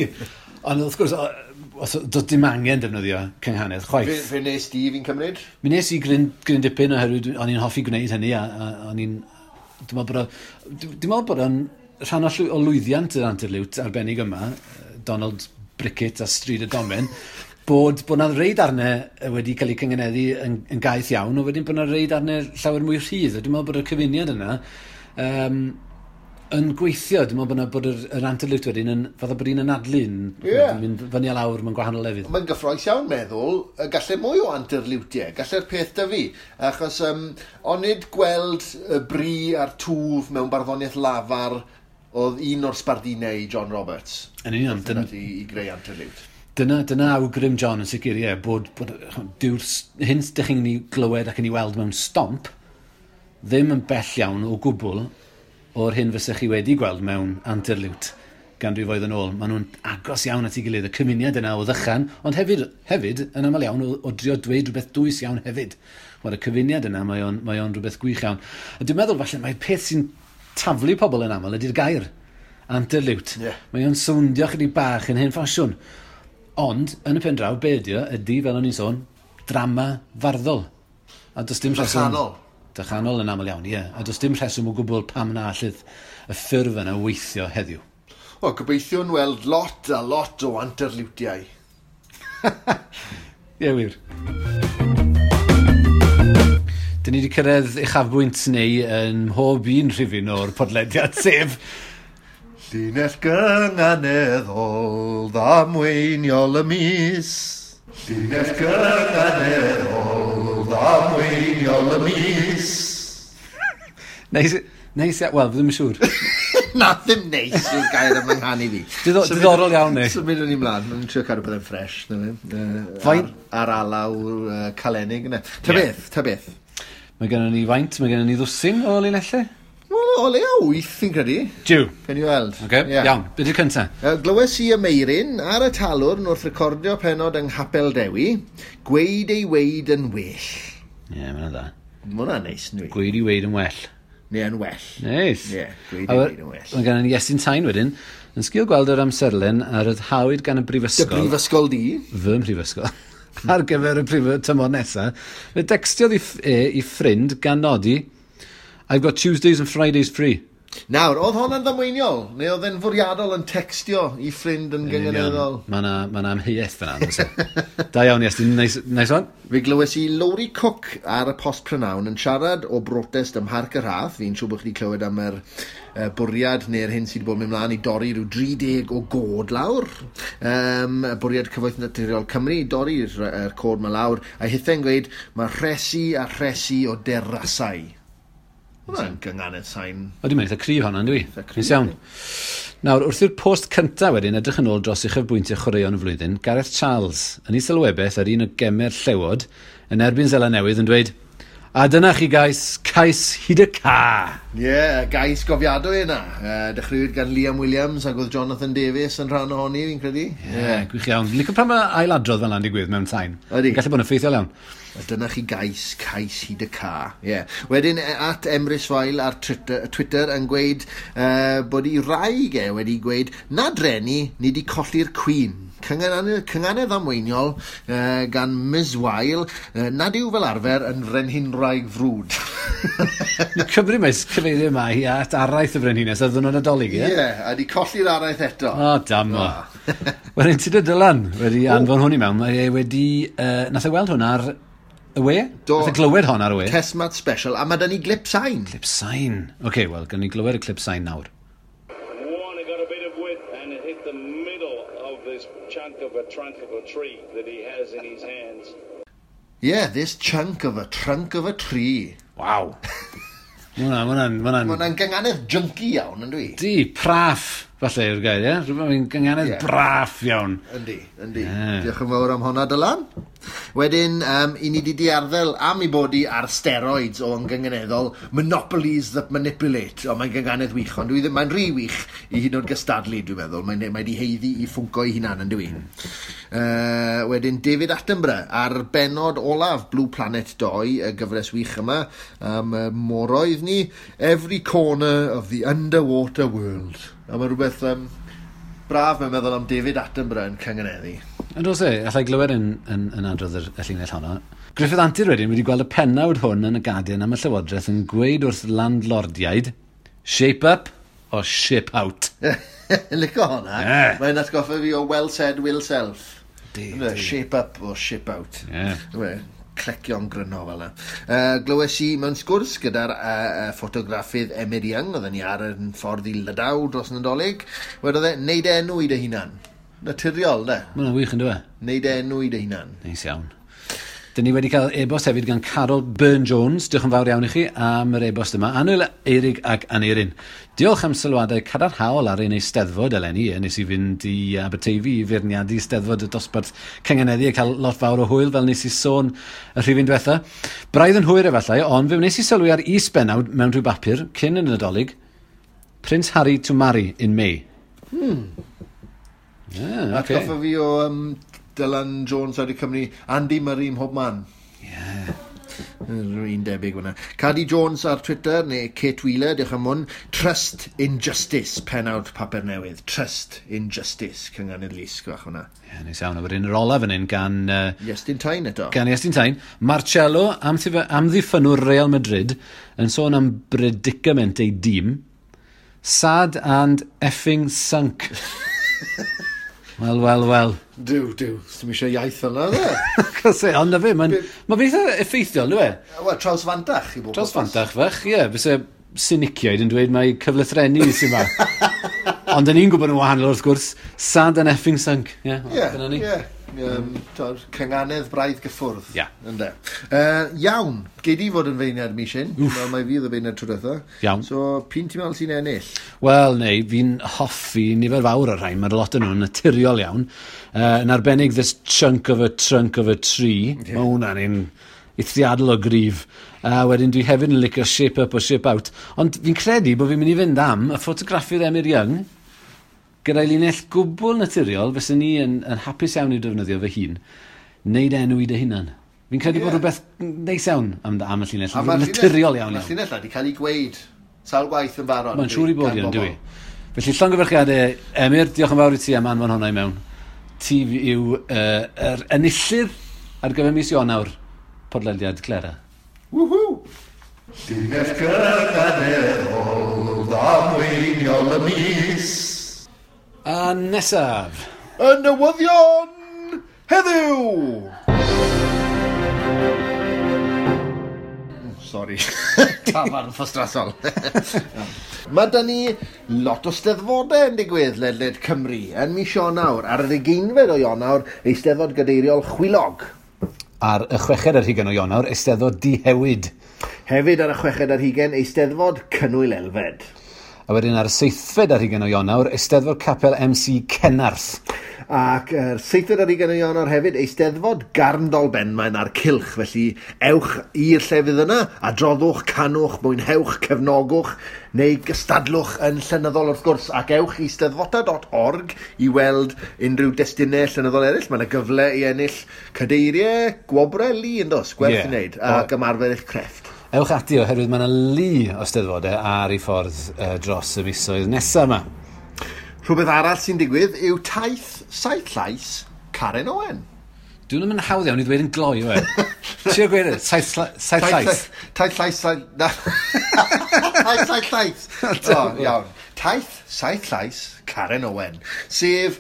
Ond wrth gwrs, os, doedd dim angen defnyddio cynghanedd chwaith. Fe nes di fi'n cymryd? Mi nes i gryn dipyn oherwydd o'n i'n hoffi gwneud hynny a o'n i'n. Dwi'n meddwl bod o'n rhan o lwyddiant yr anterliwt arbennig yma, Donald Brickett a Stryd y Domen, bod 'na rei darnau wedi cael eu cyngeneddu yn gaeth iawn, a wedyn bod 'na rei darnau llawer mwy rhydd. A dwi'n meddwl bod y cyfuniad yna yn gweithio. Dwi'n meddwl bod yr anterliwt wedyn yn, fatha bod un anadlu yn mynd fyny a lawr mewn gwahanol lefydd. Mae'n gyffrous iawn meddwl, gallai mwy o anterliwtiau, gallai'r peth da fi. Achos onid gweld y bri a'r twf mewn barddoniaeth lafar oedd un o'r sbardunau i John Roberts. Yn union. I greu anterliwt. Dyna awgrym John yn sicr, ie, bod dyw'r hyn dych chi'n ei glywed ac yn ei weld mewn Stomp ddim yn bell iawn o gwbl o'r hyn fysech chi wedi gweld mewn anterliwt ganrifoedd yn ôl. Maen nhw'n agos iawn at ei gilydd, y cymuniad yna o ddychan, ond hefyd yn aml iawn o drio dweud rhywbeth dwys iawn hefyd. Mae'r cyfuniad yna, mae o'n rhywbeth gwych iawn. A dwi'n meddwl falle mae'r peth sy'n taflu pobl yn aml ydy'r gair anterliwt. Mae o'n sowndio chydig bach yn hen ffasiwn. Ond, yn y pen draw, be ydy o, ydy, fel o'n i'n sôn, drama farddol. A does dim rheswm. Dychanol. Dychanol yn aml iawn, ie. A does dim rheswm o gwbl pam na allith y ffurf yna weithio heddiw. O, gobeithio'n weld lot a lot o anterliwtiau. Ie, wir. Dyn ni wedi cyrraedd uchafbwynt neu yn mhob un rhifyn o'r podlediad, sef Llinell gynganeddol ddamweiniol y mis. Llinell gynganeddol ddamweiniol y mis. Neis, neis, wel, ddim yn siŵr. Na, ddim neis yw'r gair am yng fi. Diddorol iawn, ni. Symud yn i mlaen, mae'n trio cadw pethau'n ffresh. Na fe. Ar alaw calenig yna. Ta beth, ta beth. Mae gennym ni faint, mae gennym ni ddwsin o linellau. Wel, o leia wyth, fi'n credu. Jiw. Pen i weld. Okay, iawn. Be di'r cynta? Glywes i y Meirin ar y talwrn wrth recordio penod yng Nghapel Dewi, gweud ei weid yn well. Ie, yeah, mae'n dda. Mae hwnna'n neis, nhw. Gweud ei weid yn well. Neu yn well. Neis. Ie, gweud ei weid yn well. Mae gennym ni Iestyn Tain wedyn, yn sgil gweld yr amserlen a ryddhawyd gan y Dy brifysgol. brifysgol di. Fy mhrifysgol. Ar gyfer y prif tymor nesaf. Fe decstiodd i ffrind gan nodi, "I've got Tuesdays and Fridays free." Nawr, oedd hwnna'n ddamweiniol? Neu oedd e'n fwriadol yn textio i ffrind yn gynganeddol? Mae yna ma amheuaeth fyna. Does e? Da iawn, Iestyn. Nice, nice one. Fe glywes i Lowri Cook ar y Post Prynawn yn siarad o brotest ym Mharc y Rhath. Fi'n siŵr bod chi wedi clywed am yr bwriad neu'r hyn sydd wedi bod yn mynd mlaen i dorri rhyw 30 o goed lawr. Bwriad Cyfoeth Naturiol Cymru i dorri'r coed 'ma lawr. A hithe'n gweud mae rhesi a rhesi o derasau. Hwna'n gynganedd sain. O, dwi'n mynd eitha cryf hwnna, dwi? Eitha cryf, Neis iawn. Nawr, wrth i'r post cynta wedyn edrych yn ôl dros uchafbwyntiau chwaraeon y flwyddyn, Gareth Charles yn ei sylwebaeth ar un o gemau'r Llewod yn erbyn Seland Newydd yn dweud, "A dyna chi gais, cais hyd y ca." Ie, yeah, gais gofiadwy yna. Dechreuwyd gan Liam Williams ac oedd Jonathan Davies yn rhan ohoni, fi'n credu. Ie, yeah, gwych iawn. Licio pan mae ailadrodd fel yna'n digwydd mewn sain. Ydi. Gallu bod yn effeithiol iawn. A dyna chi gais, cais hyd y ca. Yeah. Wedyn @EmrysFael ar Twitter yn gweud bod ei wraig e wedi gweud na dreni, ni di colli'r Queen. Cynganedd amweiniol gan Ms Weil, nad yw fel arfer yn frenhinwraig frwd. Ni'n cyfri mae cyfeirio yma hi at araith y frenhines ar ddwrnod Nadolig, Ie, ie? yeah, a di colli'r araith eto. O, dam o. Wedyn, Tudur Dylan wedi anfon hwn i mewn. Mae e wedi. Nath e weld hwn ar y we? Do. Nath e glywed hon ar y we? Tesmat special, a mae da ni glip sain. Clip sain. Oce, okay, wel, gawn ni glywed y clip sain nawr. One, got a bit of width and it hit the middle of this chunk of a trunk of a tree that he has in his hands. Yeah, this chunk of a trunk of a tree. Waw. Mae hwnna'n. Mae hwnna'n gynganedd junky iawn, yn dwi? Di, praff. falle yw'r gair, ie? Rhywbeth mae'n gynganedd braff iawn. Yndi, yndi. Yeah. Diolch yn fawr am honna, Dylan. Wedyn, i ni di diarddel am ei bod i ar steroids o yngynghaneddol, Monopolies that Manipulate. O, mae'n gynganedd wych, ond dwi ddim, mae'n rhy wych i hyd yn oed gystadlu, dwi'n meddwl. Mae'n mae di haeddu i ffwnco ei hunan, yn dwi. Wedyn, David Attenborough, ar benod olaf Blue Planet 2, y gyfres wych yma, am moroedd ni, Every Corner of the Underwater World. A mae rhywbeth braf mae'n meddwl am David Attenborough yn cynganeddu. Yn oes e, allai glywed yn adrodd y llinell honno. Griffith Antur wedyn wedi gweld y pennawd hwn yn y Guardian am y Llywodraeth yn gweud wrth landlordiaid, shape up or ship out. Lico honna. Yeah. Mae'n atgoffa fi o well said, will self. Di, di. Shape up or ship out. Yeah. Clecio'n gryno fel yna. Glywes i mewn sgwrs gyda'r ffotograffydd Emyr Young, oedden ni ar yn ffordd i Lydaw dros Nadolig, wedodd e, neud enw i dy hunan. Naturiol, ne? Mae hwnna'n wych yn dwi? Neud enw i dy hunan. Neis iawn. Dyn ni wedi cael e-bost hefyd gan Carol Byrne-Jones. Diolch yn fawr iawn i chi am yr e-bost yma. Annwyl Eirig ac Aneirin. Diolch am sylwadau cadarnhaol ar ein eisteddfod eleni. Nes i fynd i Aberteifi i feirniadu eisteddfod y dosbarth cynganeddu a cael lot fawr o hwyl fel nes i sôn y rhifyn diwetha. Braidd yn hwyr efallai, ond fe wnes i sylwi ar is-bennawd mewn rhyw bapur cyn y Nadolig. Prince Harry to marry in May. Yeah, okay. Atgoffa fi o Dylan Jones ar y Cymru, Andy Murray mhob man. Yeah. Un debyg hwnna. Cadi Jones ar Twitter, neu Kate Wheeler, diolch am hwn. Trust in Justice, pennawd papur newydd. Trust in Justice, cynganedd lusg fach hwnna. Ie, yeah, neis iawn. A wedyn yr olaf yn un gan... Iestyn Tyne eto. Gan Iestyn Tyne. Marcelo, amddiffynnwr Real Madrid, yn sôn am predicament ei dîm. Sad and effing sunk. Wel, wel, wel. Duw, duw. Sdim eisiau iaith yna, dde. Cos e, ond na fe, mae'n ma eitha effeithiol, dwi e? Wel, trawsfantach i bob. Trawsfantach fach, ie. Fyse siniciaid yn dweud mai cyflythrennu sy'n ma. Ond yn ni'n gwybod yn wahanol, wrth gwrs, sad and effing sunk. Ie, dyna ni. Ie, cynganedd braidd gyffwrdd. Ie. Ynde. Iawn, gei di fod yn feirniad mis hyn. Wel, mae fi oedd y feirniad tro diwetha. Iawn. So, p'un ti'n meddwl sy'n ennill? Wel, neu, fi'n hoffi nifer fawr o'r rhain. Mae'r lot yn nhw'n naturiol iawn. Yn arbennig, this chunk of a trunk of a tree. Yeah. Mae hwnna'n un eithriadol o gryf. Wedyn dwi hefyd yn licio shape up or ship out. Ond fi'n credu bod fi'n mynd i fynd am y ffotograffydd Emyr Young gyda'i linell gwbl naturiol, fyswn ni yn hapus iawn i'w defnyddio fy hun, neud enw i dy hunan. Fi'n credu bod rhywbeth neis iawn am y llinell, naturiol iawn. Mae'r llinell wedi cael ei gweud sawl gwaith yn barod. Mae'n siŵr i bod iawn, dwi. Felly llongyfarchiadau, Emyr, diolch yn fawr i ti am anfon hwnna i mewn. Ti yw yr enillydd ar gyfer mis Ionawr, podlediad Clera. Woohoo! Llinell gynganeddol ddamweiniol y mis. A nesaf. Y newyddion heddiw! Sorry. Tafarn ffostrasol. Mae da ni lot o steddfodau yn digwydd ledled Cymru yn mis Ionawr. Ar yr 20fed o Ionawr, Eisteddfod Gadeiriol Chwilog. Ar y 6fed ar hugain o Ionawr, Eisteddfod Dihewyd. Hefyd ar y 6fed ar hugain, Eisteddfod Cynwyl Elfed. A wedyn ar y 7fed ar hugain o Ionawr, Eisteddfod Capel MC Cenarth. Ac yr 7fed ar hugain o Ionawr hefyd, Eisteddfod Garndol Benmaen a'r Cylch. Felly ewch i'r llefydd yna, adroddwch, canwch, mwynhewch, cefnogwch, neu gystadlwch yn llenyddol wrth gwrs. Ac ewch i steddfota.org i weld unrhyw destunau llenyddol eraill. Mae yna gyfle i ennill cadeiriau, gwobrau lu yn dos, gwerth i wneud, ac ymarfer eich crefft. Ewch ati oherwydd mae yna lu o steddfodau ar ei ffordd dros y misoedd nesaf yma. Rhywbeth arall sy'n digwydd yw taith saith llais Karen Owen. Dwi'n mynd hawdd iawn i ddweud yn gloi, yw e? Trio gweud e, saith llais. Taith llais, saith... Taith saith llais. O, iawn. Taith saith llais Karen Owen. Sef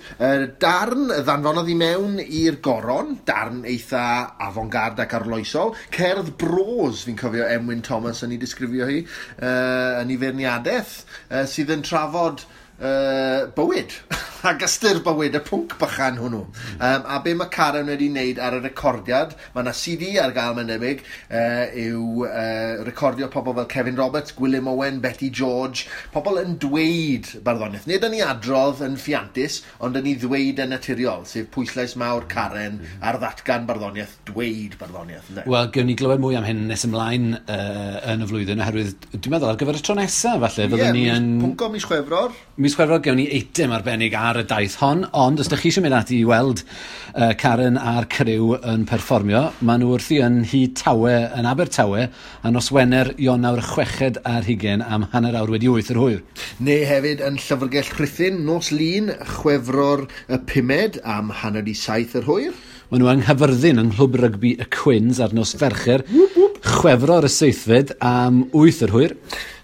darn ddanfonodd i mewn i'r goron, darn eitha avant-garde ac arloesol, cerdd bros, fi'n cofio Emwyn Thomas yn ei disgrifio hi, yn ei feirniadaeth, sydd yn trafod bywyd. Ac ystyr bywyd, y pwnc bychan hwnnw. A be mae Karen wedi wneud ar y recordiad, mae yna CD ar gael mae'n debyg, yw recordio pobl fel Kevin Roberts, Gwilym Owen, Betty George, pobl yn dweud barddoniaeth. Nid yn ei adrodd yn ffiantus, ond yn ei ddweud yn naturiol, sef pwyslais mawr Karen ar ddatgan barddoniaeth, dweud barddoniaeth. Ynde? Wel, gewn ni glywed mwy am hyn nes ymlaen yn y flwyddyn, oherwydd dwi'n meddwl ar gyfer y tro nesaf, falle, fyddwn ni yn... Pwnco mis Chwefror. Mis Chwefror gewn ni eitem arbennig ar y daith hon, ond os ydych chi eisiau mynd ati i weld Karen a'r criw yn perfformio, maen nhw wrthi yn Nhŷ Tawe yn Abertawe a nos Wener Ionawr 26 am 8:30 yr hwyr. Neu hefyd yn Llyfrgell Rhuthun nos Lun Chwefror y 5 am 6:30 yr hwyr. Maen nhw yng Nghaerfyrddin yng Nghlwb Rygbi y Cwins ar nos Fercher, Chwefror y 7 am 8 yr hwyr.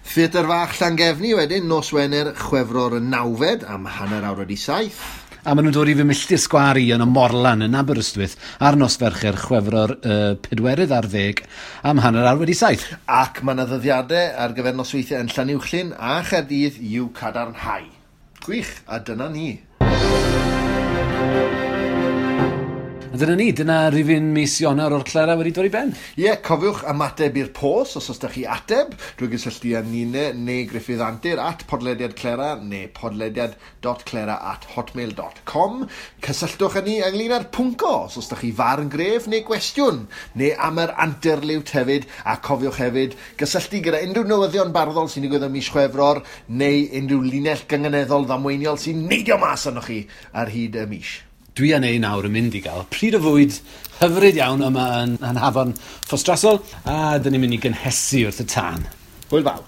Theatr Fach Llangefni wedyn, nos Wener Chwefror y 9 am 7:30. A maen nhw'n dod i fy milltir sgwâr i yn y Morlan yn Aberystwyth ar nos Fercher Chwefror 14 am 7:30. Ac mae yna ddyddiadau ar gyfer nosweithiau yn Llanuwchllyn a Chaerdydd i'w cadarnhau. Gwych, a dyna ni. A dyna ni, dyna rifyn mis Ionawr o'r Clera wedi dod i ben. Ie, cofiwch ymateb i'r post os oes da chi ateb drwy gysylltu â Nina neu Gruffydd Antur at podlediad Clera neu podlediad.clera@hotmail.com. Cysylltwch â ni ynglyn â'r pwnco os oes da chi farn gref neu gwestiwn, neu am yr anterliwt hefyd, a cofiwch hefyd gysylltu gyda unrhyw newyddion barddol sy'n digwydd ym mis Chwefror neu unrhyw linell gynganeddol ddamweiniol sy'n neidio mas arnoch chi ar hyd y mis. Dwi a Nei nawr yn mynd i gael pryd o fwyd hyfryd iawn yma yn Hafan Ffostrasol, a dyn ni'n mynd i gynhesu wrth y tân. Hwyl fawr.